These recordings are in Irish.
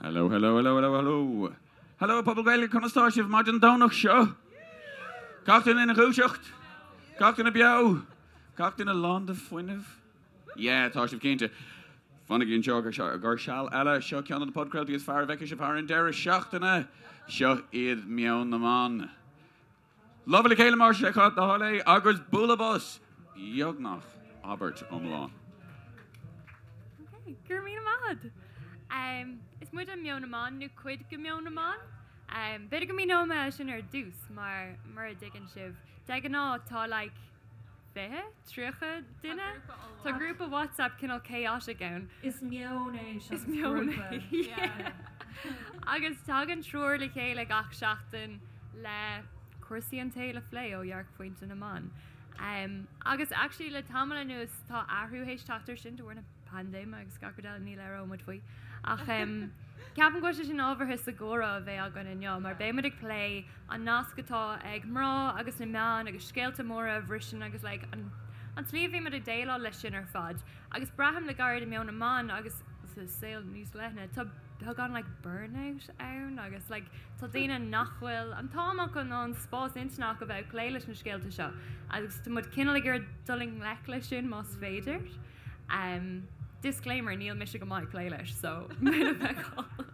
Hello, hello, hello, hello, hello. Hello, pobal Gaeilge, conas tá sibh maidin Domhnach seo? Gach duine ina dhúiseacht? Gach duine beo? Gach duine lán de fuinneamh? Yeah, tá sibh cinnte. Fanaigí anseo go seal eile. Seo ceann de na podchraoltaí is fearr a bhfeicfidh sibh thar an deireadh seachtaine. Seo iad Meon na mBan. Lámha le chéile más é do thoil é agus bualadh bos! Beagnach abairt iomlán. Ok, go raibh míle maith agat. Is muide Meon na mBan, nó cuid de Meon na mBan. B'fhéidir go míneoidh mé é sin ar dtús, mar mura dtuigeann sibh, de ghnáth tá like 20, 30 duine. Tá grúpa WhatsApp cineál chaotic ann. Is meon é seachas Is meon é, yeah. Agus tagann triúr le chéile gach seachtain le cúrsaí an tsaoil a phlé ó dhearcphointe na mban. Um, agus actually le tamall anuas tá athrú théis teacht air sin de bharr na paindéime agus gach rud eile ní labhróidh muid faoi. Ach um, ceapaim go bhfuil sé sin ábhartha sa gcomhrá a bheidh againn inniu mar beidh muid ag plé an nasc atá ag mná agus na meáin agus scéalta móra a bhriseann agus like, an, an tslí a bhíonn muid ag déileáil leis sin ar fad. Agus braithim le gairid i Meon na mBan agus sa saol níos leithne, tá beagán like burnout ann agus like tá daoine nach bhfuil an t-am acu ná an spás intinne acu bheith ag plé leis na scéalta seo agus tá muid cineál ag iarraidh dul i ngleic leis sin más féidir. Um, disclaimer, níl mise go maith ag plé leis, so mé feiceáil.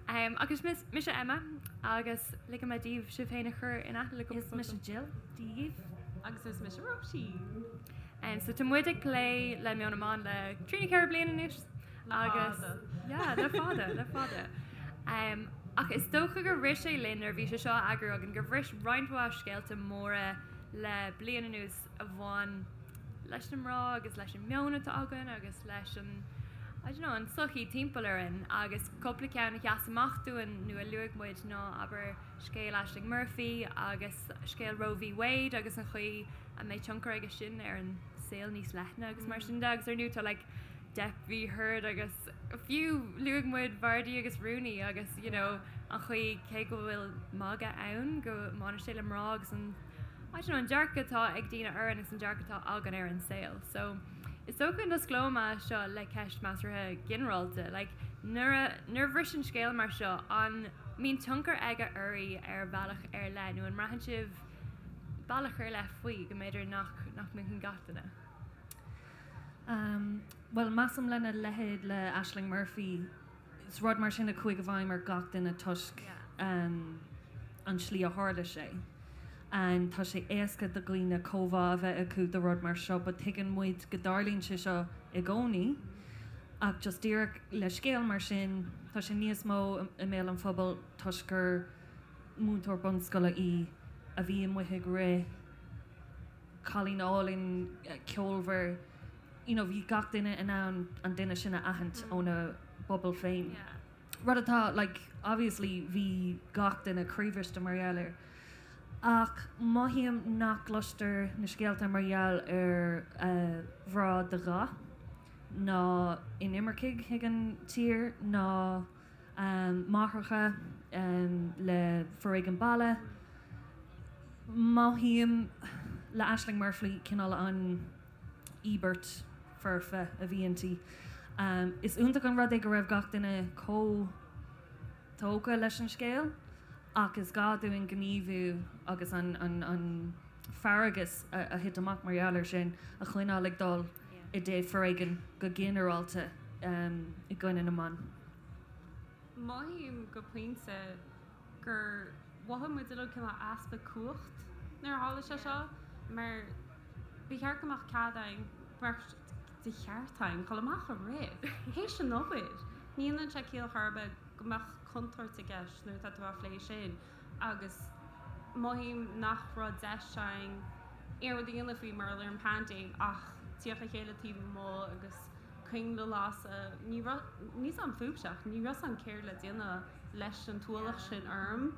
Um, agus mis, mise Emma agus ligfidh mé daoibh sibh féin a chur in aithne le cúpla Is mise Jill, Dia dhaoibh. Agus is mise Róisín. Um, so tá muid ag plé le Meon na mBan le trí nó 4 bliana anois agus yeah, le fada, le fada. Um, ach is dócha gur rith sé linn nuair a bhí sé seo á eagrú againn gur bhris roinnt mhaith scéalta móra le bliain anuas a bhain leis na mná agus leis an meon atá againn agus leis an I don't know, an tsochaí timpeall orainn agus cúpla ceann a sheas amach dúinn nó a luaigh muid ná abair scéal Ashling Murphy agus scéal Roe v Wade agus an chaoi a mbeidh tionchar aige sin ar an saol níos leithne agus mar sin de agus ar ndóigh tá like Depp v Heard agus fiú luaigh muid Vardy agus Rooney agus you know an chaoi cé go bhfuil magadh ann go mbaineann sé le mná agus an I don't know an dearcadh atá ag daoine orainn agus an dearcadh atá againn ar an saol. So is dócha go n-osclóidh mé seo le ceist measartha ginearálta like nuair a nuair a bhriseann scéal mar seo an mbíonn tionchar aige oraibh ar bhealach ar leith nó an mbraitheann sibh bealach ar leith faoi go mb'fhéidir nach nach mothaíonn gach duine? Um, bhuel measaim lena leithéid le Ashling Murphy, is rud mar sin a chuaigh i bhfeidhm ar gach duine toisc um, an tslí a tharla sé. And tá sé éasca do dhaoine comhbhá a bheith acu do rud mar seo, but tuigeann muid go dtarlaíonn sé seo i gcónaí. Ach just díreach le scéal mar sin, tá sé níos mó i mbéal an phobail toisc gur múinteoir bunscoile í a bhí amuigh ag rith, cailín álainn, ceolmhar, you know, bhí gach duine in ann an duine sin a aithint óna bpobal féin. Rud atá, like, obviously bhí gach duine croíbhriste mar gheall air. Ach mothaím nach gcloistear na scéalta mar gheall ar mhná de dhath, ná inimircigh chuig an tír, ná máithreacha le foréigean baile. Mothaím le Ashling Murphy cineál an íobairt foirfe a bhí inti. Is iontach an rud é go raibh gach duine chomh tógtha leis an scéal ach is gá dúinn gníomhú agus an fearg a thit amach mar gheall air sin a choinneáil ag dul i dtaobh foréigean go ginearálta i gcoinne na mban. Mothaím go pointe gur mhothaigh muid uilig cineál easpa cumhacht nuair a tharla sé seo mar ba cheart go mbeadh cead againn, ba cheart de cheart againn dul amach ag rith, théis an obair. Ní dhéanann sé ciall chor ar bith go mbeadh contúirt i gceist nuair atá tú á phlé sin agus mothaím nach raibh deis againn aon rud a dhéanamh faoi mar gheall ar an bpaindéim ach tíocht le chéile taobh amuigh agus coinnle a lasadh. Ní raibh, níl 's a'm fúibhse ach ní raibh 's a'm céard le déanamh leis an t-ualach sin orm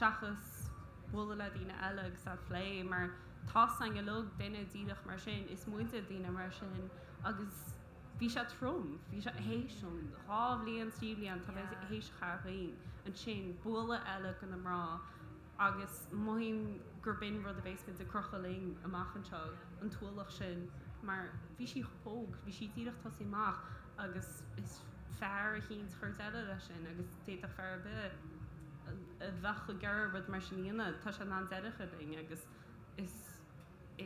seachas bualadh le daoine eile agus a phlé mar tá 's a'inn uilig duine díreach mar sin, is muide daoine mar sin agus bhí sé trom, bhí sé théis an 2 bhliain, 3 bhliain tá mé théis a chaitheamh againn ansin bualadh eile do na mná agus mothaím gur b'in rud a bheas muid ag crochadh linn amach anseo, an t-ualach sin, mar bhí sí chomh hóg, bhí sí díreach tosaí amach agus is. fear eicínt a chur deireadh leis sin agus d'fhéadfadh fear ar bith a bheadh ag iarraidh rud mar sin a dhéanamh, tá sé in ann deireadh a chur linn agus is,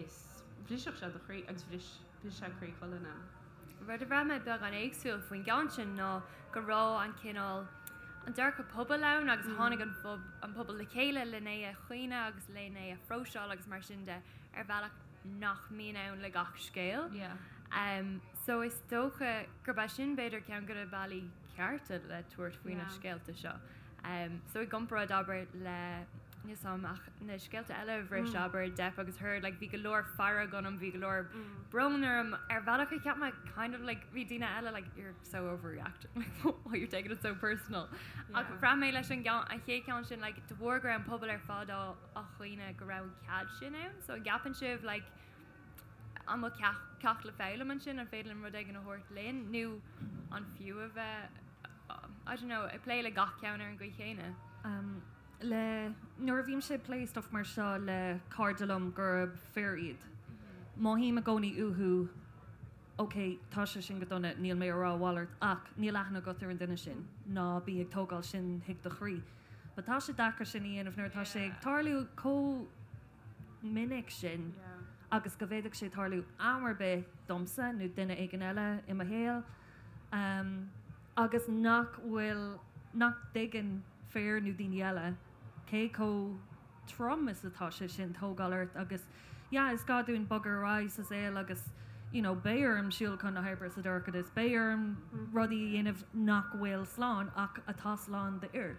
is, bhrisfeadh sé do chroí agus bhris, bhris sé croí chuile dhuine. Rud a bhraith mé beagán éagsúil faoin gceann sin ná go raibh an cineál, an dearcadh pobail ann agus tháinig an an pobal le chéile len é a chaoineadh agus len é a phróiseáil agus mar sin de ar bhealach nach mbíonn ann le gach scéal. So is dócha gurb é sin b'fhéidir ceann de na bealaí cearta le tabhairt faoi na scéalta seo. So i gcomparáid abair le níl 's a'm ach na scéalta eile a bhris abair Depp agus Heard like bhí go leor fearg ionam, bhí go leor brón orm ar bhealach a cheap mé kind of like bhí daoine eile like you're so overreacting like why you're taking it so personal. Ach bhraith mé leis an gceann an chéad cheann sin like de bharr go raibh an pobal ar fad á á chaoineadh go raibh an cead sin ann so an gceapann sibh like an bhfuil ceacht le foghlaim ansin, an féidir linn rud éigin a thabhairt linn nó an fiú a bheith I don't know, ag plé le gach ceann ar an gcaoi chéanna? Um, le, nuair a bhímse ag plé stuff mar seo le cairde liom gurb fir iad, mothaím i gcónaí uathu ok, tá sé sin go dona, níl mé ag rá a mhalairt ach níl aithne agat ar an duine sin, ná bí ag tógáil sin chuig do chroí. But tá sé deacair sin a dhéanamh nuair atá sé ag tarlú chomh minic sin agus go bhféadfadh sé tarlú am ar bith domsa nó duine éigin eile i mo shaol agus nach bhfuil, nach dtuigeann fir nó daoine eile cé chomh trom is atá sé sin tógáil ort agus yeah is gá dúinn bogadh ar aghaidh sa saol agus you know beidh orm siúl chun na hoibre sa dorchadas, beidh orm rudaí a dhéanamh nach bhfuil slán ach atá slán d'fhir.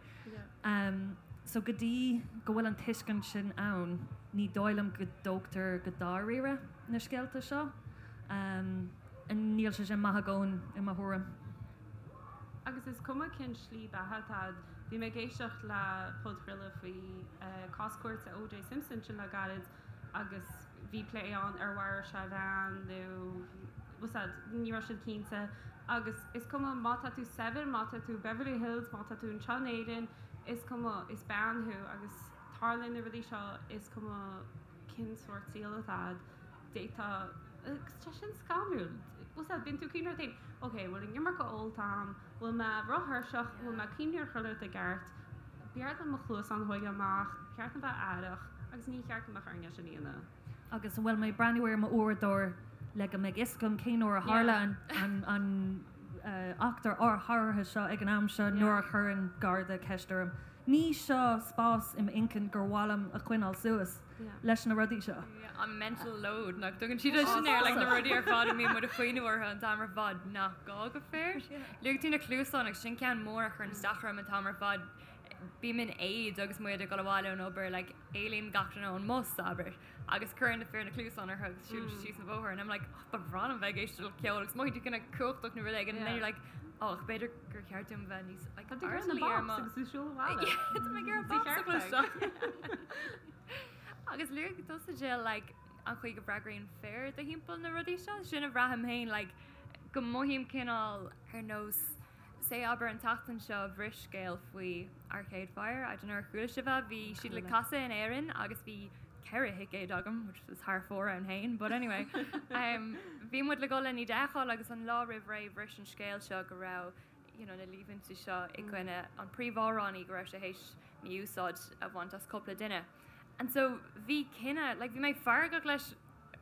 So go dtí go bhfuil an tuiscint sin ann, ní dóigh liom go dtógtar go dáiríre na scéalta seo. Níl sé sin maith i gcónaí, i mo thuairim. Agus is cuma cén slí beatha atá agat, bhí mé ag éisteacht le podchraoladh faoi cás cúirte O.J. Simpson ansin le gairid agus bhí plé ann ar mharaigh sé a bhean nó bhfuil 's a'd, ní raibh siad cinnte. Agus is cuma má tá tú saibhir, má tá tú Beverly Hills, má tá tú anseo in Éirinn, is cuma, is bean thú agus tarlaíonn na rudaí seo, is cuma cén sórt saoil atá a'd, d'fhéadfá, agus tá sin scanrúil, bhfuil 's a'd, bíonn tú ag cuimhneamh ort féin, ok, bhfuil an iomarca ólta a'm, bhfuil mé róthuirseach, bhfuil mé ag cuimhneamh ar chuile rud i gceart, b'fhearr dom mo chluasáin a thógáil amach, ba cheart dom bheith aireach agus ní cheart go mbeadh orainn é sin a dhéanamh. Agus an bhfuil mé ag breathnú ar m'uaireadóir le go mbeidh fhios agam cén uair a tharla an eachtra áirithe seo ag an am seo nuair a chuireann Garda ceist orm? Ní seo spás i m'inchinn gur mhaith liom a choinneáil suas leis na rudaí seo. An mental load nach dtugann siad sin air, like na rudaí ar fad a mbíonn muid ag cuimhneamh orthu an t-am ar fad nach gá go fir. Luaigh tú na cluasáin agus sin ceann mór a chuireann isteach orm an t-am ar fad. Bím in éad agus muid ag dul abhaile ón obair, like éalaíonn gach duine ón mbus, abair, agus cuireann na fir na cluasáin orthu agus siúlann siad síos an bóthar and I'm like, oh, ba bhreá liom bheith ag éisteacht le ceol agus mothaíonn tú cineál cumhachtach nó rud éigin and then you're like, oh, ach b'fhéidir gur cheart dom bheith níos like, Tá tú ag iarraidh na airdeallaí ar bops mo- agus tú siúl abhaile. Yeah, tá mé ag iarraidh Sa bops a cheart chloisteáil. Agus luaigh tusa Jill, like, an chaoi go bhfreagraíonn fir do thimpeall na rudaí seo, sin a bhraithim féin, like, go mothaím cineál ar nós Say abair an tseachtain seo bhris scéal faoi Arcade Fire, I don't know ar chuala sibh é, bhí siad le casadh in Éirinn agus bhí 4 thicéad agam, which is thar fóir ann féin, but anyway um, bhí muid le dul le iad a fheiceáil agus an lá roimh ré bhris an scéal seo go raibh you know, na líomhaintí seo i gcoinne an príomhamhránaí go raibh sé théis mí-úsáid a bhaint as cúpla duine. And so bhí cinneadh, like bhí mé feargach leis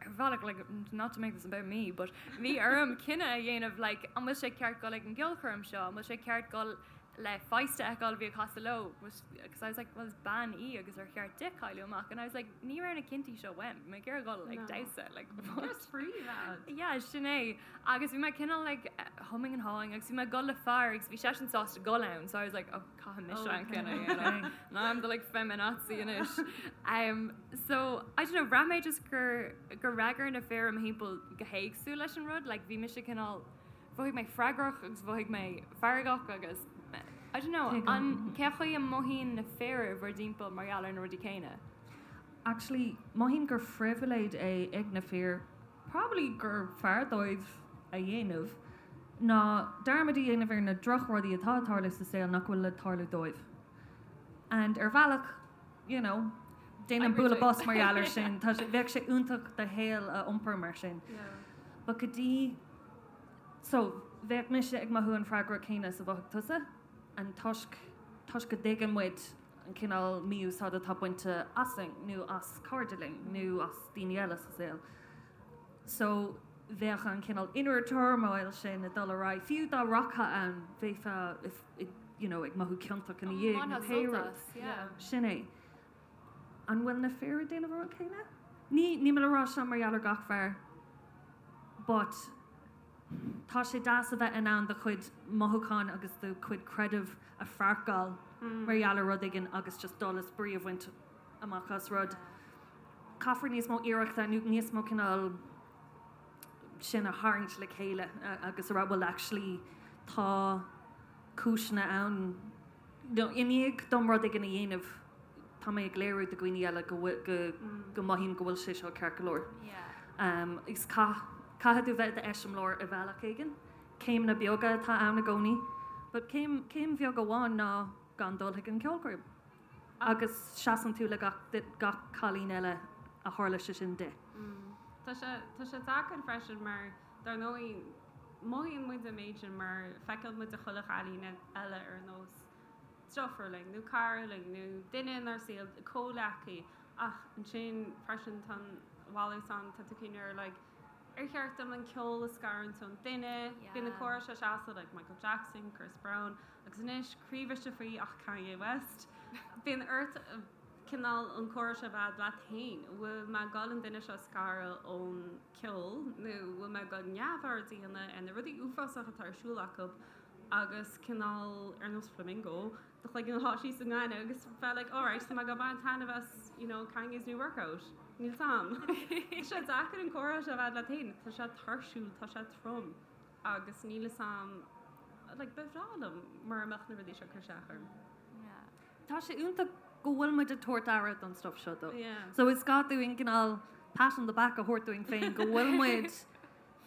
ar bhealach, like not to make this about me, but bhí orm cinneadh a dhéanamh like an bhfuil sé ceart dul ag an gceolchoirm seo, an bhfuil sé ceart dul le Feist a fheiceáil a bhí ag casadh leo, because I was like well is bean í agus ar cheart di cailleadh amach and I was like ní raibh na cinntí seo uaim, bhí mé ag iarraidh dul ag damhsa like what? Spraoi bhead. Yeah, sin é. Agus bhí mé cineál like humming and hawing agus bhí mé ag dul le fear agus bhí seisean sásta dul ann so I was like oh caithfidh mise an cinneadh a dhéanamh. Now I'm the like feminazi anois. Um, so, I don't know, bhraith mé just gur, gur fhreagair na fir i mo thimpeall go héagsúil leis an rud, like bhí mise cineál, mhothaigh mé freagrach agus mhothaigh mé feargach agus, I don't know, an, cé chaoi a mothaíonn na fir i bhur dtimpeall mar gheall ar na rudaí céanna? Actually, mothaím gur phribhléid é ag na fir, probably gur fearr dóibh a dhéanamh ná dearmad a dhéanamh ar na drochrudaí atá ag tarlú sa saol nach bhfuil le tarlú dóibh. And ar bhealach, you know, déanaim bualadh bos mar gheall air sin, tá sé, bheadh sé iontach do shaol a iompar mar sin. But go dtí, so, Bheadh mise ag mothú an freagra céanna is a mhothaigh tusa, an toisc, toisc go dtuigeann muid an cineál mí-úsáid atá bainte asainn nó as cairde linn nó as daoine eile sa saol. So, bheadh an cineál inner turmoil sin ag dul ar aghaidh, fiú dá rachfá ann, bheifeá you know, ag mothú ciontach ina dhiaidh nó pé rud. Sin é. An bhfuil na fir ag déanamh an rud céanna? Ní, níl mé ag rá seo mar gheall ar gach fear, but tá sé deas a bheith in ann do chuid mothúchán agus do chuid creideamh a pháirceáil mar gheall ar rud éigin agus just dul is brí a bhaint amach as rud. Caithfear níos mó iarrachta nó níos mó cineál sin a tharraingt le chéile agus a rá well actually tá cúiseanna ann nó i ndiaidh dom rud éigin a dhéanamh tá mé ag léiriú do dhaoine eile go go go mothaím go bhfuil sé seo ceart go leor. Is caith caithfidh tú bheith i d'eiseamláir i bhealach éigin. Céimeanna beaga atá ann i gcónaí, but céim céim bheag amháin ná gan dul chuig an ceolchoirm. Agus seasann tú le gach gach cailín eile a tharla sé sin di. Tá sé tá sé deacair freisin mar dar ndóigh mothaíonn muid an méid sin mar feiceann muid chuile chailín eile ar nós deirfiúr linn nó cara linn nó duine inár saol, comhghleacaí ach ansin freisin tá an mhalairt ann, tá tú ag cuimhneamh ar like ar cheart dom an ceol a scarúint ón duine, bíonn na comhrá seo seasta like Michael Jackson, Chris Brown agus anois croíbhriseadh faoi ach Kanye West. Bíonn ort cineál an comhrá seo a bheith leat féin, bhfuil mé ag dul an duine seo a scaradh ón ceol nó bhfuil mé ag dul neamhaird a dhéanamh ar na rudaí uafásacha atá ar siúl acu agus cineál ar nós flamingo do chloigeann a shá síos sa ngaineamh agus bheith like alright tá mé ag dul baint taitneamh as you know Kanye's new workout. Níl 's a'm. Tá sé deacair an comhrá seo a bheith leat féin, tá sé tuirsiúil, tá sé trom agus níl 'fhios a'm like ba bhreá liom mura mbeadh na rudaí seo ag cur isteach orm. Tá sé iontach go bhfuil muid ag tabhairt aire don stuff seo though. So is gá dúinn cineál pat on the back a thabhairt dúinn féin go bhfuil muid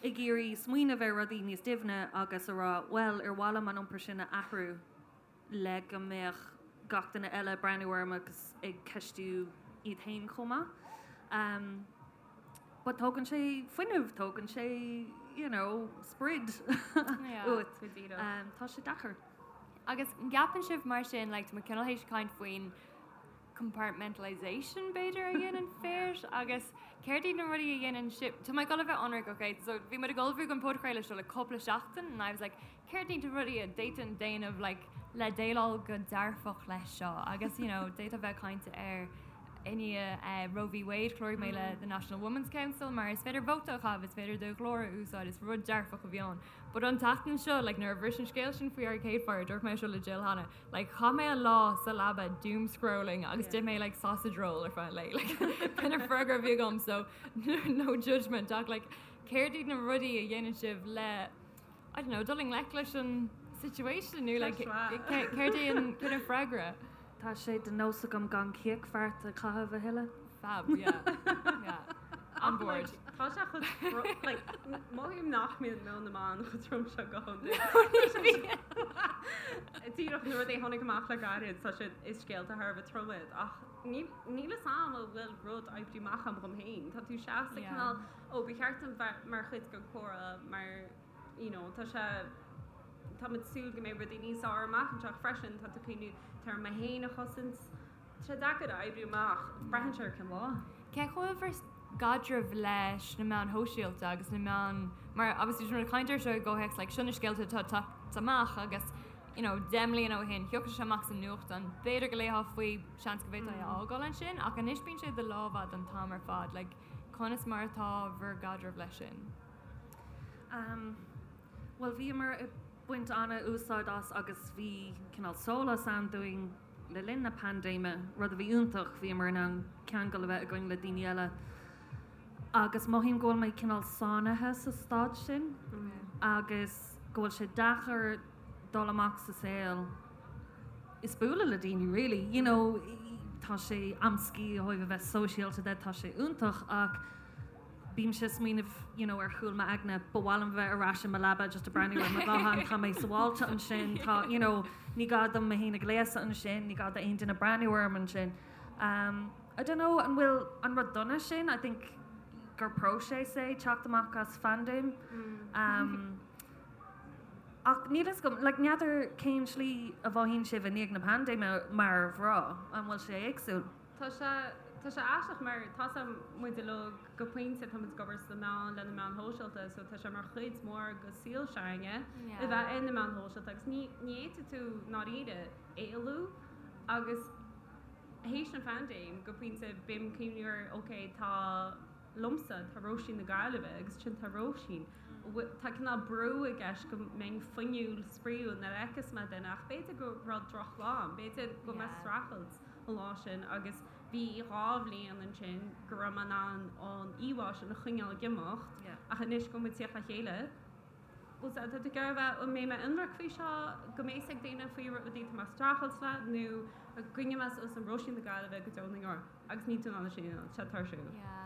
ag iarraidh smaoineamh ar rudaí níos doimhne agus a rá bhuel ar mhaith liom an iompar sin a athrú le go mbeadh gach duine eile ag breathnú orm agus ag ceistiú iad féin chomh maith. Um, but tógann sé fuinneamh, tógann sé you know, sprid uait. Um, tá sé deacair. Agus an gceapann sibh mar sin, like, tá muid cineál théis caint faoin compartmentalisation b'fhéidir a dhéanann fir agus céard iad na rudaí a dhéanann sibh, tá mé ag dul a bheith ionraic, ok, so bhí muid ag ullmhú don podchraoladh seo le cúpla seachtain and I was like céard iad na rudaí a d'fhéadfainn déanamh like le déileáil go dearfach leis seo agus you know d'fhéadfá bheith ag caint ar i ndiaidh Roe v Wade chláraigh mé le the National Women's Council mar is féidir vóta a chaitheamh, is féidir do ghlór a úsáid, is rud dearfach a bhí ann. But an tseachtain seo, like, nuair a bhris an scéal sin faoi Arcade Fire, dúirt mé seo le Jill cheana, like, chaith mé an lá sa leaba doom scrolling agus d'ith mé like sausage roll ar feadh an lae. Like, b'in an freagra a bhí agam, so no judgment ach like, céard iad na rudaí a dhéanann sibh le, I don't know, dul i ngleic leis an situation nó like, céard é an, céard an freagra? Tá sé de nós agam gan cíochbheart a chaitheamh a thuilleadh. Fab, yeah. Yeah. On board. Tá sé chomh trom, like, mothaím nach mbíonn meon na mban chomh trom seo go hiondúil. Díreach na rudaí a tháinig amach le gairid, tá siad, is scéalta thar a bheith trom iad, ach níl, níl fhios a'm an bhfuil rud oibrithe amach agam dhom féin. Tá tú seasta cineál, ó, ba cheart dom bheith mar chuid den chomhrá mar, you know, tá sé, tá muid ag súil go mbeidh rudaí níos fearr amach anseo ach freisin tá tú ag cuimhniú, tá orm mé féin a chosaint. Tá sé deacair a oibriú amach, braitheann sé ar cén lá. Cén chaoi a bhfuil bhur gcaidreamh leis na meáin shóisialta agus na meáin, mar obviously tá muid ag caint air seo i gcomhthéacs like seo na scéalta atá ag teacht amach agus you know 10 mbliana ó shin thiocfadh sé amach sa nuachtán, b'fhéidir go léifeá faoi, seans go bhféadfá é a fhágáil ansin ach anois bíonn sé i do lámh a'd an t-am ar fad like conas mar atá bhur gcaidreamh leis sin? Um, bhuel bhíomar ag baint an-úsáid as agus bhí cineál sólás ann dúinn Le linn na paindéime, rud a bhí iontach, bhíomar in ann ceangal a bheith againn le daoine eile agus mothaím go bhfuil mé cineál sáinnithe sa staid sin agus go bhfuil sé deacair dul amach sa saol is bualadh le daoine really, you know, tá sé amscaí ó thaobh a bheith sóisialta de, tá sé iontach ach Bímse ag smaoineamh you know ar chúl m'aigne, ba mhaith liom bheith ar ais i mo leaba just ag breathnú ar mo ghuthán, tá mé sábháilte ansin, tá you know ní gá dom mé féin a ghléasadh ansin, ní gá d'aon duine breathnú orm ansin. Um, I don't know an bhfuil an rud dona sin, I think gur próiseas é teacht amach as phaindéim. Um, Ach níl fhios agam, like n'fheadar cén slí a mhothaíonn sibh i ndiaidh na paindéime mar mhná, an bhfuil sé éagsúil? Tá sé, tá sé aisteach mar tá sé, muid uilig go pointe, tá muid ag obair sna meáin, le na meáin shóisialta so tá sé mar chuid mhór de saol s'againne a bheith ar na meáin shóisialta agus ní, ní fhéadfaidh tú i ndáiríre éalú agus théis an phaindéim go pointe bím cuimhniú ar ok tá liomsa, tá Róisín na Gaillimhe agus ansin tá Róisín. Tá cineál brú i gceist go mbeinn fuinniúil, spraíúil nuair a fheiceas mé duine ach b'fhéidir go raibh drochlá ann, b'fhéidir go raibh mé ag streachailt an lá sin agus bhí 2 bhliain ansin go raibh mé in ann an íomhá sin a choinneáil ag imeacht ach anois go bhfuil muid ag tíocht le chéile, bhuel tá tú ag iarraidh a bheith, an mbeidh mé ionraic faoi seo, go mbeidh fhios ag daoine faoi rudaí atá mé ag streachailt le nó an gcoinneoidh mé suas an Róisín na Gaillimhe go deo na ndeor. Agus níl tú in ann é sin a dhéanamh, tá sé tuirsiúil. Yeah.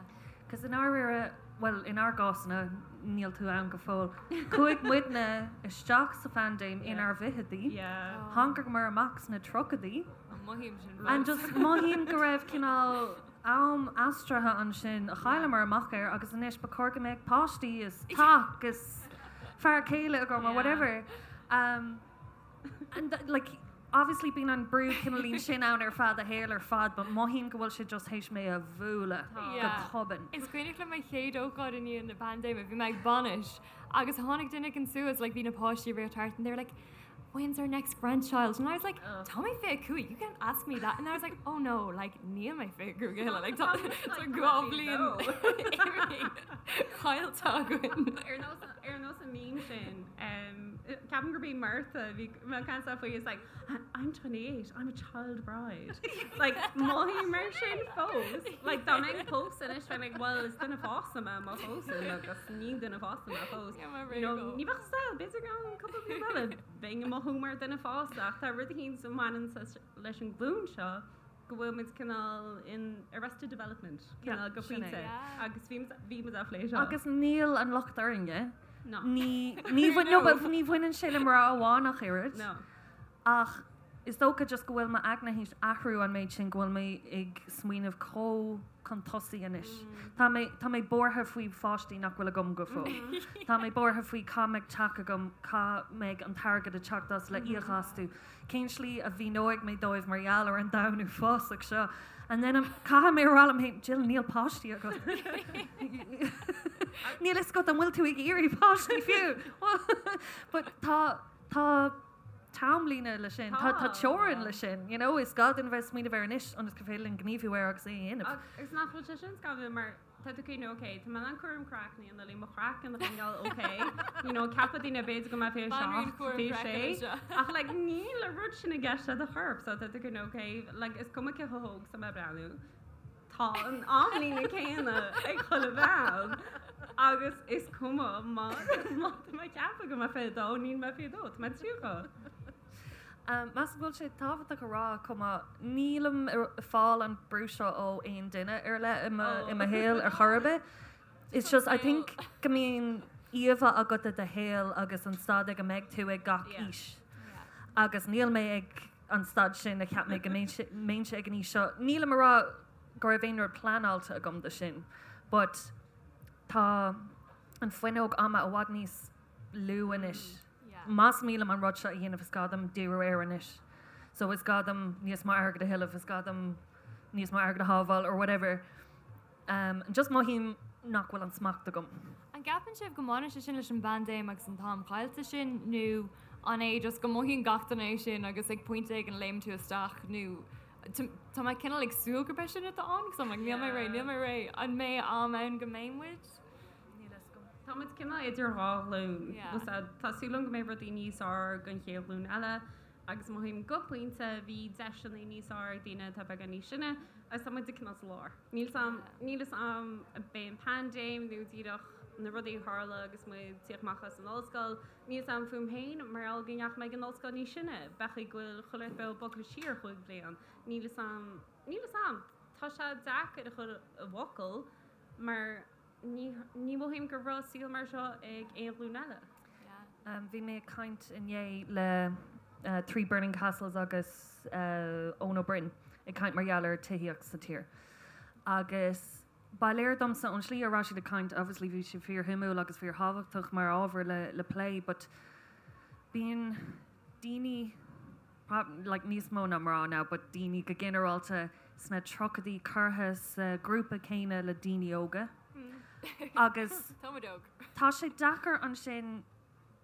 Cos i ndáiríre, bhuel, inár gcásanna, níl tú ann go fóill, chuaigh muidne isteach sa phaindéim inár bhfichidí, Yeah. thángamar amach sna tríochaidí, Mothaím sin and fós. just mothaím go raibh cineál am aistrithe ansin a chailleamar amach air agus anois ba chóir go mbeadh páistí is teach is fear céile agam or Yeah. whatever. Um, And like, obviously bíonn an brú cineáilín sin ann ar feadh do shaoil ar fad, but mothaím go bhfuil sé just théis mé a bhualadh go tobann. Is cuimhneach liom mo chéad ócáid i ndiaidh na paindéime, bhí mé ag bainis agus tháinig duine éigin suas, like bhí na páistí ag rith thart and they were like, when's our next grandchild? And I was like, tá mé 25, you can't ask me that. And I was like, oh no, like níl mé 25 a thuilleadh, like tá 2 bhliain caillte againn. Ar nós an meme sin, ceapaim gurb í Martha a bhí ag caint faoi is like, I'm 28, I'm a child bride. Like, mothaím mar sin fós. Like, dá mbeinn ag pósadh anois, bheinn like, well, is duine fásta mé má phósaim agus ní duine fásta mé fós. You know, ní bheadh style, b'fhéidir go gceann cúpla bliain eile, bheinn ag mothú mar duine fásta ach tá rud éicint a bhaineann leis an ghlúin seo go bhfuil muid cineál in arrested development, cineál go pointe, agus bhí bhí muid á phlé seo. Agus níl an locht orainne. No. Ní ní bhain no but ní bhaineann sé le mná amháin ach oiread. No. Ach is dócha just go bhfuil m'aigne théis athrú an méid sin go bhfuil mé ag smaoineamh chomh chun tosaigh anois. Tá mé tá mé buartha faoi pháistí nach bhfuil agam go fóill. Tá mé buartha faoi cá mbeidh teach agam, cá mbeidh an t-airgead ag teacht as le íoc astu. Cén slí a mhíneoidh mé dóibh mar gheall ar an domhan uafásach seo? And then I'm, caithfidh mé a rá liom féin, Jill, níl páistí agat. Níl fhios agat an bhfuil tú ag iarraidh páistí fiú. But tá, tá t-amlíne le sin, tá, tá teorainn le sin, you know, is gá dúinn a bheith ag smaoineamh air anois ionas gur féidir linn gníomhú air agus é a dhéanamh. Agus nach bhfuil sé sin scanrúil mar Tá tú ag cuimhniú, ok, tá mé in ann cúram craicinn a dhéanamh, mo chraiceann a choinneáil ok, you know, ceapfaidh daoine b'fhéidir go mbeidh 27, 26, ach like níl an rud sin i gceist le do chorp, so tá tú ag cuimhniú, ok, like is cuma cé chomh hóg is atá mé ag breathnú, tá an amlíne céanna ag chuile bhean agus is cuma má má tá mé ag ceapadh go mbeidh 22, níl mé 22, tá mé 30. Measaim go bhfuil sé tábhachtach a rá chomh maith, nílim ag fáil an brú seo ó aon duine ar leith i mo i mo shaol ar chor ar bith. It's just, I think go mbíonn íomha agat de do shaol agus an staid ag a mbeidh tú ag gach aois. Agus níl mé ag an staid sin a cheap mé go mbeinnse ag an aois seo. Nílim ag rá go raibh aon rud pleanáilte agam do sin, but tá an fuinneog ama i bhfad níos lú anois. Más mian liom an rud seo a dhéanamh is gá dom díriú air anois. So is gá dom níos mó airgid a thuilleamh, is gá dom níos mó airgid a shábháil or whatever. Um, just mothaím nach bhfuil an smacht agam. An gceapann sibh go mbaineann sé sin leis an bpaindéim agus an t-am caillte sin nó an é just go mothaíonn gach duine é sin agus ag pointe éigin léimeann tú isteach nó tá mé cineál ag súil gurb é sin atá ann 'cause I'm like níl mé réidh, níl mé réidh. An mbeidh am ann go mbeidh muid? Níl fhios agam. Tá muid cineál idir dhá ghlúin. Tá súil agam go mbeidh rudaí níos fearr don chéad ghlúin eile agus mothaím go pointe bhí deiseanna níos fearr ag daoine atá beagán níos sine agus tá muid cineál sa lár. Níl 's a'm, níl 'fhios a'm ab é an paindéim nó díreach na rudaí a tharla agus muid ag tíocht amach as an ollscoil. Níl 's a'm fúm féin mar gheall go ndeachaigh mé ag an ollscoil níos sine, b'fhéidir go bhfuil chuile rud beo bogtha siar chúig bhliain. Níl 'fhios a'm, níl 'fhios a'm. Tá sé deacair a chur i bhfocail mar Ní mothaím go raibh saol mar seo ag aon ghlúin eile. Bhí mé ag caint inné le Three Burning Castles agus Eoin Ó Broin ag caint mar gheall ar tithíocht sa tír. Agus ba léir domsa ón slí a raibh siad ag caint, obviously bhí sé fíorshuimiúil agus fíorthábhachtach mar ábhar le plé, but. Bíonn daoine, like níos mó ná mná now, but daoine go ginearálta sna tríochaidí curtha sa ghrúpa céanna le daoine óga. Agus Táimid óg. tá sé deacair ansin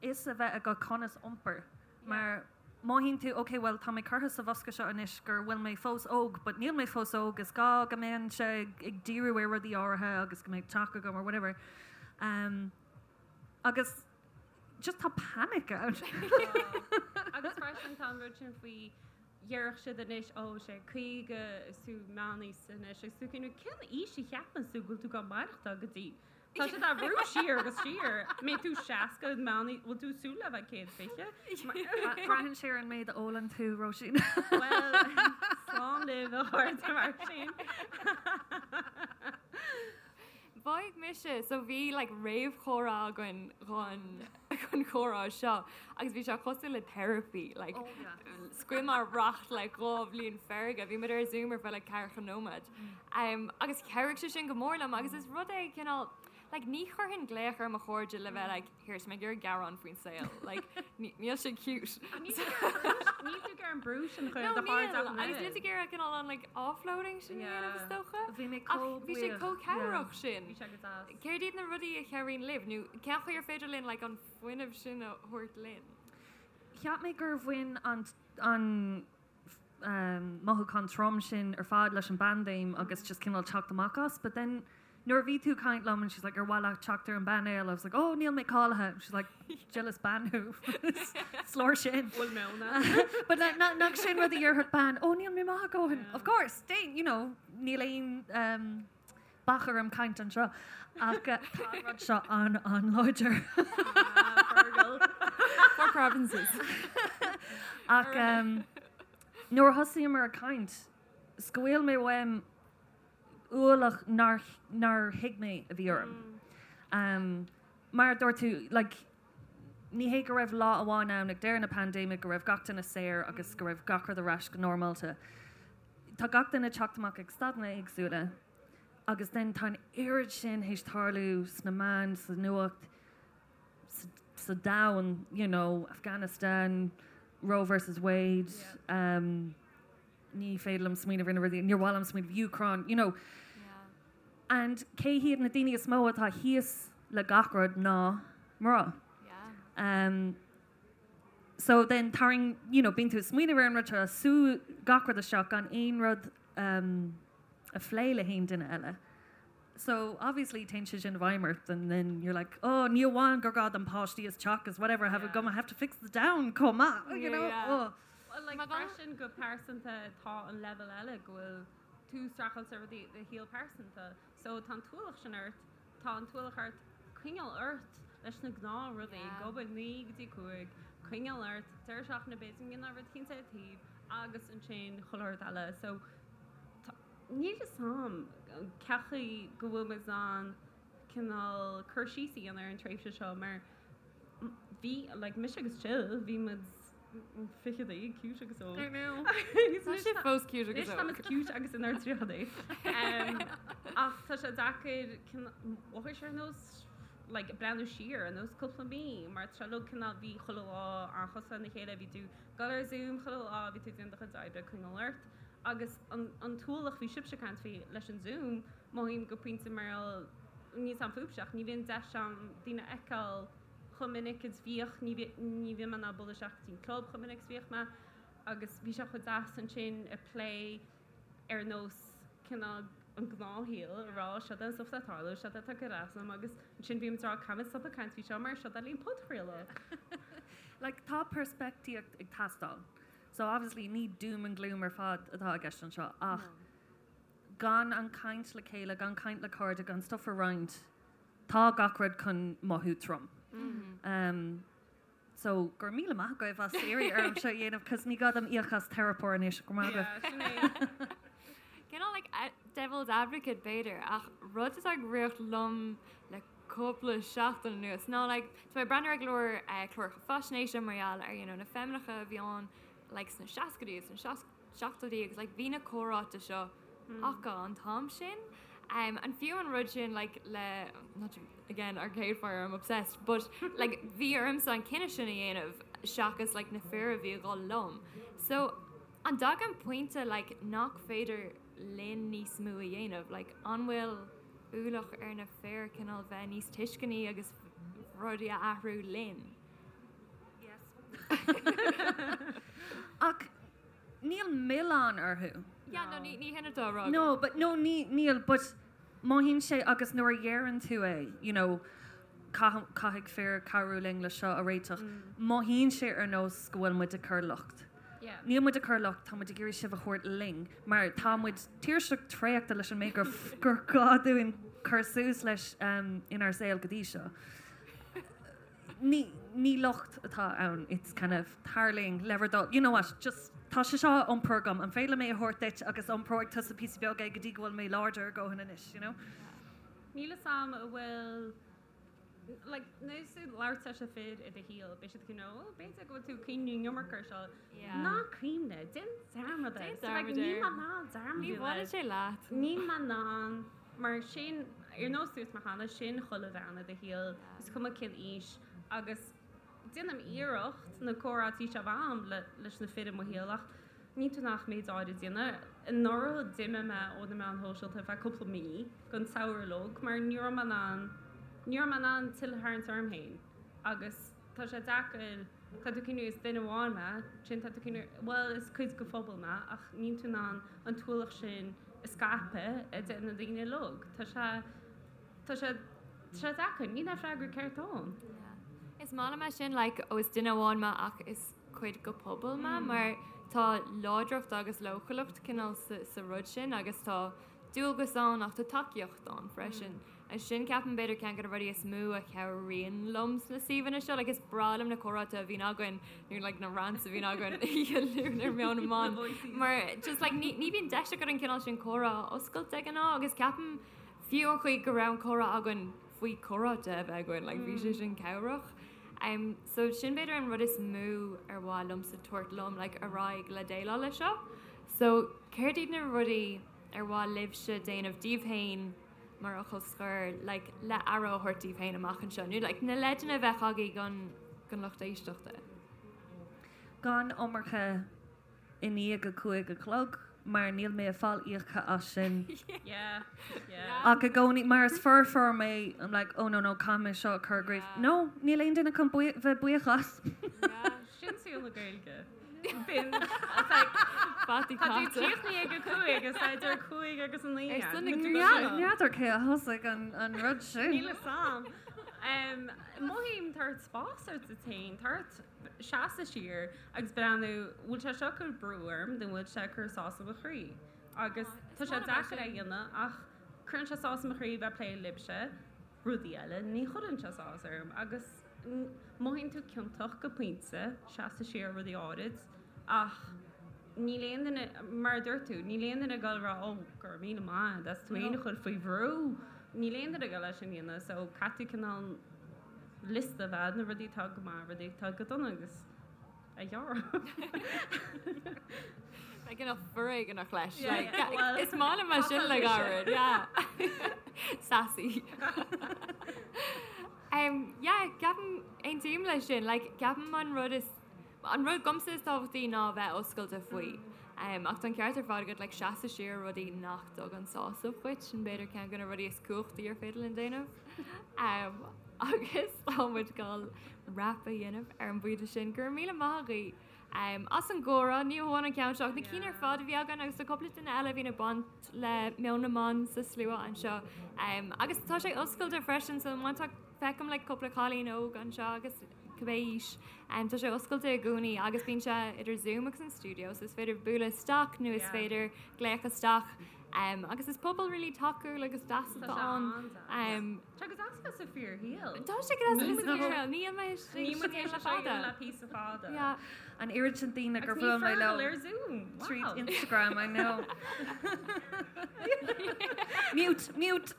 fhios a bheith agat conas iompar mar mothaíonn tú ok well tá mé curtha sa bhosca seo anois go bhfuil mé fós óg but níl mé fós óg is gá go mbeinnse ag díriú ar rudaí áirithe agus go mbeidh teach agam or whatever. Um, agus just tá panic ann. Agus freisin tá an rud sin faoi déarfadh siad anois ó sé 50 is tú meánaosta anois agus tú cén cén aois a cheapann tú go bhfuil tú ag maireachtáil go dtí? Tá siad á bhrú siar agus siar. Mbeidh tú 60 meánaosta, bhfuil tú ag súil le bheith 120? Braitheann sé ar an méid a ólann tú, Róisín. Bhuel, slán libh a chairde mar sin. Mhothaigh mise, so bhí like réamhchomhrá againn chun chun comhrá seo agus bhí sé cosúil le therapy, like oh, yeah. scaoil mé racht like 2 bhliain feirge, bhí muid ar Zoom ar feadh like ceathracha nóiméad. Um, agus chabhraigh sé sin go mór liom agus is rud é cineál like ní chuirfinn glaoch ar mo chairde le bheith like here tá mé ag iarraidh gearán faoin saol like níl sé cute. Níl tú ag iarraidh an brú sin a chur ar do chairde ach an Agus níl tú ag iarraidh cineál an like offloading sin a dhéanamh is dócha. Bhí mé chomh Bhí sé chomh cabhrach sin. Bhí sé go deas. Céard iad na rudaí a chabhraíonn libh nó cén chaoi ar féidir linn like an fuinneamh sin a thabhairt linn? Cheap mé gur bhain an an mothúchán trom sin ar fad leis an bpaindéim agus just cineál teacht amach as but then nuair a bhí tú ag caint liom and she's like ar mhaith leat teacht ar an bpainéal I was like oh níl mé cáilithe and she's like Jill is bean thú is leor sin Bhfuil mé ann? but nach sin rud a dhéarfadh bean oh níl mé maith a dhóthain of course déan you know níl aon um, bac orm caint anseo ach tá an rud seo an an-láidir. Fergal. Four provinces. Ach um, nuair a thosaíomar ag caint, scaoil mé uaim ualach nár, nár thuig mé a bhí orm. Um, mar a dúirt tú, like, ní hé go raibh lá amháin ann ag deireadh na paindéime go raibh gach duine saor agus go raibh gach rud ar ais go normálta. Tá gach duine ag teacht amach ag staideanna éagsúla agus then tá an oiread sin théis tarlú sna meáin, sa nuacht, sa domhan, you know, Afghanistan, Roe versus Wade, um, ní féidir liom smaoineamh ar na rudaí, níor mhaith liom smaoineamh, Ukraine, you know. And cé hiad na daoine is mó atá thíos le gach rud ná mná. Um, So then tarraing, you know, bíonn tú ag smaoineamh ar an rud seo, sú gach rud isteach gan aon rud um, a phlé le haon duine eile. So obviously téann sé sin i bhfeidhm ort and then you're like, oh, ní amháin gur gá dom páistí is teach is whatever I have yeah. I have to fix the domhan chomh maith, you know? Yeah. Oh. Well, like, freisin go pearsanta tá an level eile go bhfuil tú ag streachailt le rudaí i do shaol pearsanta. So tá an t-ualach sin ort Tá an t-ualach ort coinneáil ort leis na gnáthrudaí, ag obair 9 go dtí 5, coinneáil ort, deireadh seachtaine b'fhéidir go ndéanfá rud éicint ar taobh agus ansin chuile shórt eile. So níl fhios a'm cén chaoi go bhfuil muid in ann cineál cur síos a dhéanamh ar an tréimhse seo mar bhí, like, mise agus Jill, bhí muid fichidí, cute agus óg. I know. Tá sé fós cute agus Anois tá muid óg. cute agus inár dtríochaidí. Ach tá sé deacair mhothaigh sé ar nós like breathnú siar ar nós cúpla mí mar tá sé uilig cineál bhí chuile lá an-chosúil lena chéile, bhí tú ag dul ar Zoom chuile lá, bhí tú ag déanamh do chuid oibre, coinneáil ort. Agus an an t-ualach bhí sibhse ag caint faoi leis an Zoom, mothaím go pointe mar níl fhios a'm fúibhse ach ní bhíonn deis a'm daoine a fheiceáil chomh minic is bhíodh, ní ní bhíonn mé in ann bualadh isteach go dtí an club chomh minic is bhíodh mé agus bhí sé chomh deas ansin ag plé ar nós cineál an gnáthshaol a rá seo é an stuff atá ag tarlú, seo é atá ag cur as dom agus ansin bhí muid ag rá caithfimid stop ag caint faoi seo mar seo é linn podchraoladh. Like tá peirspictíocht ag teastáil. So obviously ní doom and gloom ar fad atá i gceist anseo ach gan an caint le chéile, gan caint le cairde, gan stuff a roinnt, Tá gach rud chun mothú trom. So, go raibh míle maith agaibh as iarraidh orm seo a dhéanamh cos ní gá dom íoc as teiripeoir anois, go raibh maith agaibh. Yeah, sin é. Cineál like devil's advocate b'fhéidir ach rud atá ag rith liom le cúpla seachtain anuas ná like tá mé ag breathnú ar go leor cláracha faisnéise mar gheall ar you know na feimineacha a bhí ann like sna seascaidí is sna seachtóidí agus like bhí na comhráite seo acu an t-am sin. And fiú an rud sin like le not to again Arcade Fire I'm obsessed but like bhí ormsa an cinneadh sin a dhéanamh. seachas like na fir a bhí ag dul liom. So an dtagann pointe like nach féidir linn níos mó a dhéanamh? Like an bhfuil ualach ar na fir cineál bheith níos tuisceanaí agus rudaí a athrú linn? Yes. Ach níl milleán orthu. Yeah, no, ní ní hin atá á rá agam. No, but no, ní níl, but mothaíonn sé agus nuair a dheireann tú é, you know, caithfidh fir cabhrú linn le seo a réiteach, mothaíonn sé ar nós go bhfuil muid ag cur locht. Níl muid ag cur locht, tá muid ag iarraidh sibh a thabhairt linn, mar tá muid tuirseach traochta leis an méid gur gur gá dúinn cur suas leis inár saol go dtí seo. Ní ní locht atá ann, it's kind of tarlaíonn le bhur dtoil, you know what, just tá sé seo á iompar agam, an féidir liom é a thabhairt duit agus iompróidh tusa píosa beag é go dtí go bhfuil mé láidir a dhóthain anois, you know? Níl 'fhios a'm an bhfuil like nuair atá tú ag labhairt leis na fir i do shaol, beidh siad you know, oh, b'fhéidir go bhfuil tú ag cuimhniú an iomarca ar seo. Yeah. Ná cuimhnigh, déan dearmad air. Déan So, like, dearmad níl air. mé in ann dearmad Ní a bhaineann sé leat. Níl mé in ann, mar sin, ar nós dúirt mé cheana, sin chuile bhean i do shaol, is cuma cén aois, agus déanaim iarracht na comhráití seo a bheith a'm le, leis na fir i mo shaol ach níl tú in ann ach méid áirid a dhéanamh. Anuraidh d'imigh mé ó na meáin shóisialta ar feadh cúpla mí don tsamhradh uilig mar ní raibh mé in ann, ní raibh mé in ann tuilleadh a tharraingt orm féin agus tá sé deacair, tá tú ag cuimhniú is duine amháin mé, ansin tá tú ag cuimhniú bhuel is cuid de phobal mé ach níl tú in ann an t-ualach sin a scaipeadh idir na daoine uilig. Tá sé, tá sé, tá sé deacair, níl aon freagra ceart ann. Yeah. Is maith liom é sin like ó is duine amháin mé ach is cuid de phobal mé mar tá láidreacht agus leochaileacht cineál sa rud sin agus tá dualgas ann ach tá tacaíocht ann freisin. Agus sin ceapaim b'fhéidir ceann de na rudaí is mó a chabhraíonn liom sna suíomhanna seo. Like is breá liom na comhráite a bhíonn againn nó like na rants a bhíonn againn oíche Luain ar Meon na mBan mar just like ní ní bhíonn deis agat an cineál sin comhrá a oscailt de ghnáth agus ceapaim fiú an chaoi go raibh an comhrá againn faoi comhráite a bheith againn like bhí sé sin cabhrach. Um, so sin b'fhéidir an rud is mó ar mhaith liomsa tabhairt liom like, ar aghaidh le déileáil leis seo. So céard iad na rudaí ar mhaith libhse déanamh daoibh féin mar fhocal scoir like, le aire a thabhairt daoibh féin amach anseo nó like, na leideanna a bheadh agaibh don, don lucht éisteachta? Gan iomarca i ndiaidh a 5 a chlog mar níl mé ag fáil íoctha as sin. Yeah, yeah. Ach i gcónaí, mar is foirfeoir mé, I'm like, oh no, no, caithfidh mé seo a chur i gcrích. Yeah. No, níl aon duine chun bhuí- bheith buíoch as. Yeah. Sin saol na Gaeilge. Bíonn, it's like, Fataí tá tú caite. críochnaithe ag a 5 is tá idir 5 agus 9 Ar son na ann. Gaeilge. N'fheadar cé a thosaigh an, an rud sin. Níl 'fhios a'm. Um, Mothaím tá ort spás a thabhairt duit féin, tá ort seasamh siar agus breathnú, bhfuil sé seo ag cur brú orm nó bhfuil sé ag cur sásamh mo chroí? Agus tá sé deacair é a dhéanamh ach cuireann sé sásamh mo chroí bheith ag plé libhse, rudaí eile, ní chuireann sé sás orm agus mothaíonn tú ciontach go pointe, seasamh siar rudaí áirid ach níl aon duine, mar a dúirt tú, níl aon duine ag dul a rá oh go raibh míle maith agat as tú féin a chur faoi bhrú, níl aon duine ag dul é sin a dhéanamh so caithfidh tú cineál liosta a bheith na rudaí atá go maith, rudaí atá go dona agus a ghearradh. Like enough foréigeanach leis. Yeah, Like, yeah, well, is maith liom é sin le gairid, yeah. Sassy. Um, yeah, ceapaim aontaím leis sin. Like, ceapaim an rud is An rud domsa is tábhachtaí ná a bheith oscailte faoi. Ach tá an ceart ar fad agat, like, seasamh siar ó rudaí nach dtugann sásamh dhuit, sin b'fhéidir ceann de na rudaí is cumhachtaí ar féidir linn déanamh. Agus tá muid ag dul wrap a dhéanamh ar an bpointe sin. Go raibh míle maith agaibh as an gcomhrá, ní hamháin an ceann seo ach na cinn ar fad a bhí againn agus tá cúpla duine eile a bhíonn ag baint le Meon na mBan sa slua anseo. Agus tá sé oscailte freisin so má tá, feicim like cúpla cailín óg anseo agus cibé aois. Tá sé oscailte i gcónaí agus bíonn sé idir Zoom agus an stiúideo so is féidir bualadh isteach nó is féidir glaoch isteach. Agus is pobal really tacúil agus deas atá ann. Tá sé go deas bheith sa fíorshaol. Tá sé go deas bheith sa fíorshaol. Níl mé Níl muid tar éis le é fada. le píosa fada. Yeah. An oiread sin daoine gur Agus ní bhuail mé leo Fergal ar Zoom. tríd Wow. Instagram, I know. Mute, mute.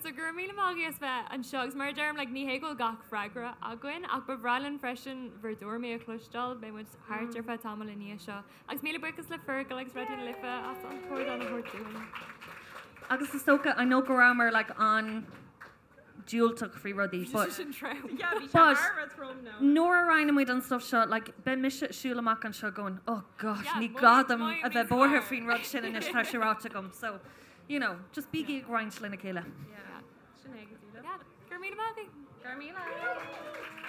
So go raibh míle maith agaibh as bheith anseo agus mar a deirim like ní hé go bhfuil gach freagra againn ach ba bhreá linn freisin bhur dtuairimí a chloisteáil, beidh muid thart ar feadh tamaill i ndiaidh seo. Agus míle buíochas le Fergal agus Raidió na Life as an t-ardán a thabhairt dúinn. Agus is dócha, I know go rabhamar like an. diúltach faoi rudaí but Sin trom. Yeah, bhí sé But- thar a bheith trom now. nuair a roinneann muid an stuff seo, like, beidh mise ag siúl amach anseo going, oh gosh, Yeah, ní mothaím- gá dom mothaím a bheith níos buartha fearr. faoin rud sin anois tá sé ráite agam. So, you know, just bígí ag roinnt lena chéile. Yeah. Sin é go díreach. Yeah. Go raibh míle maith agaibh. Go raibh míle.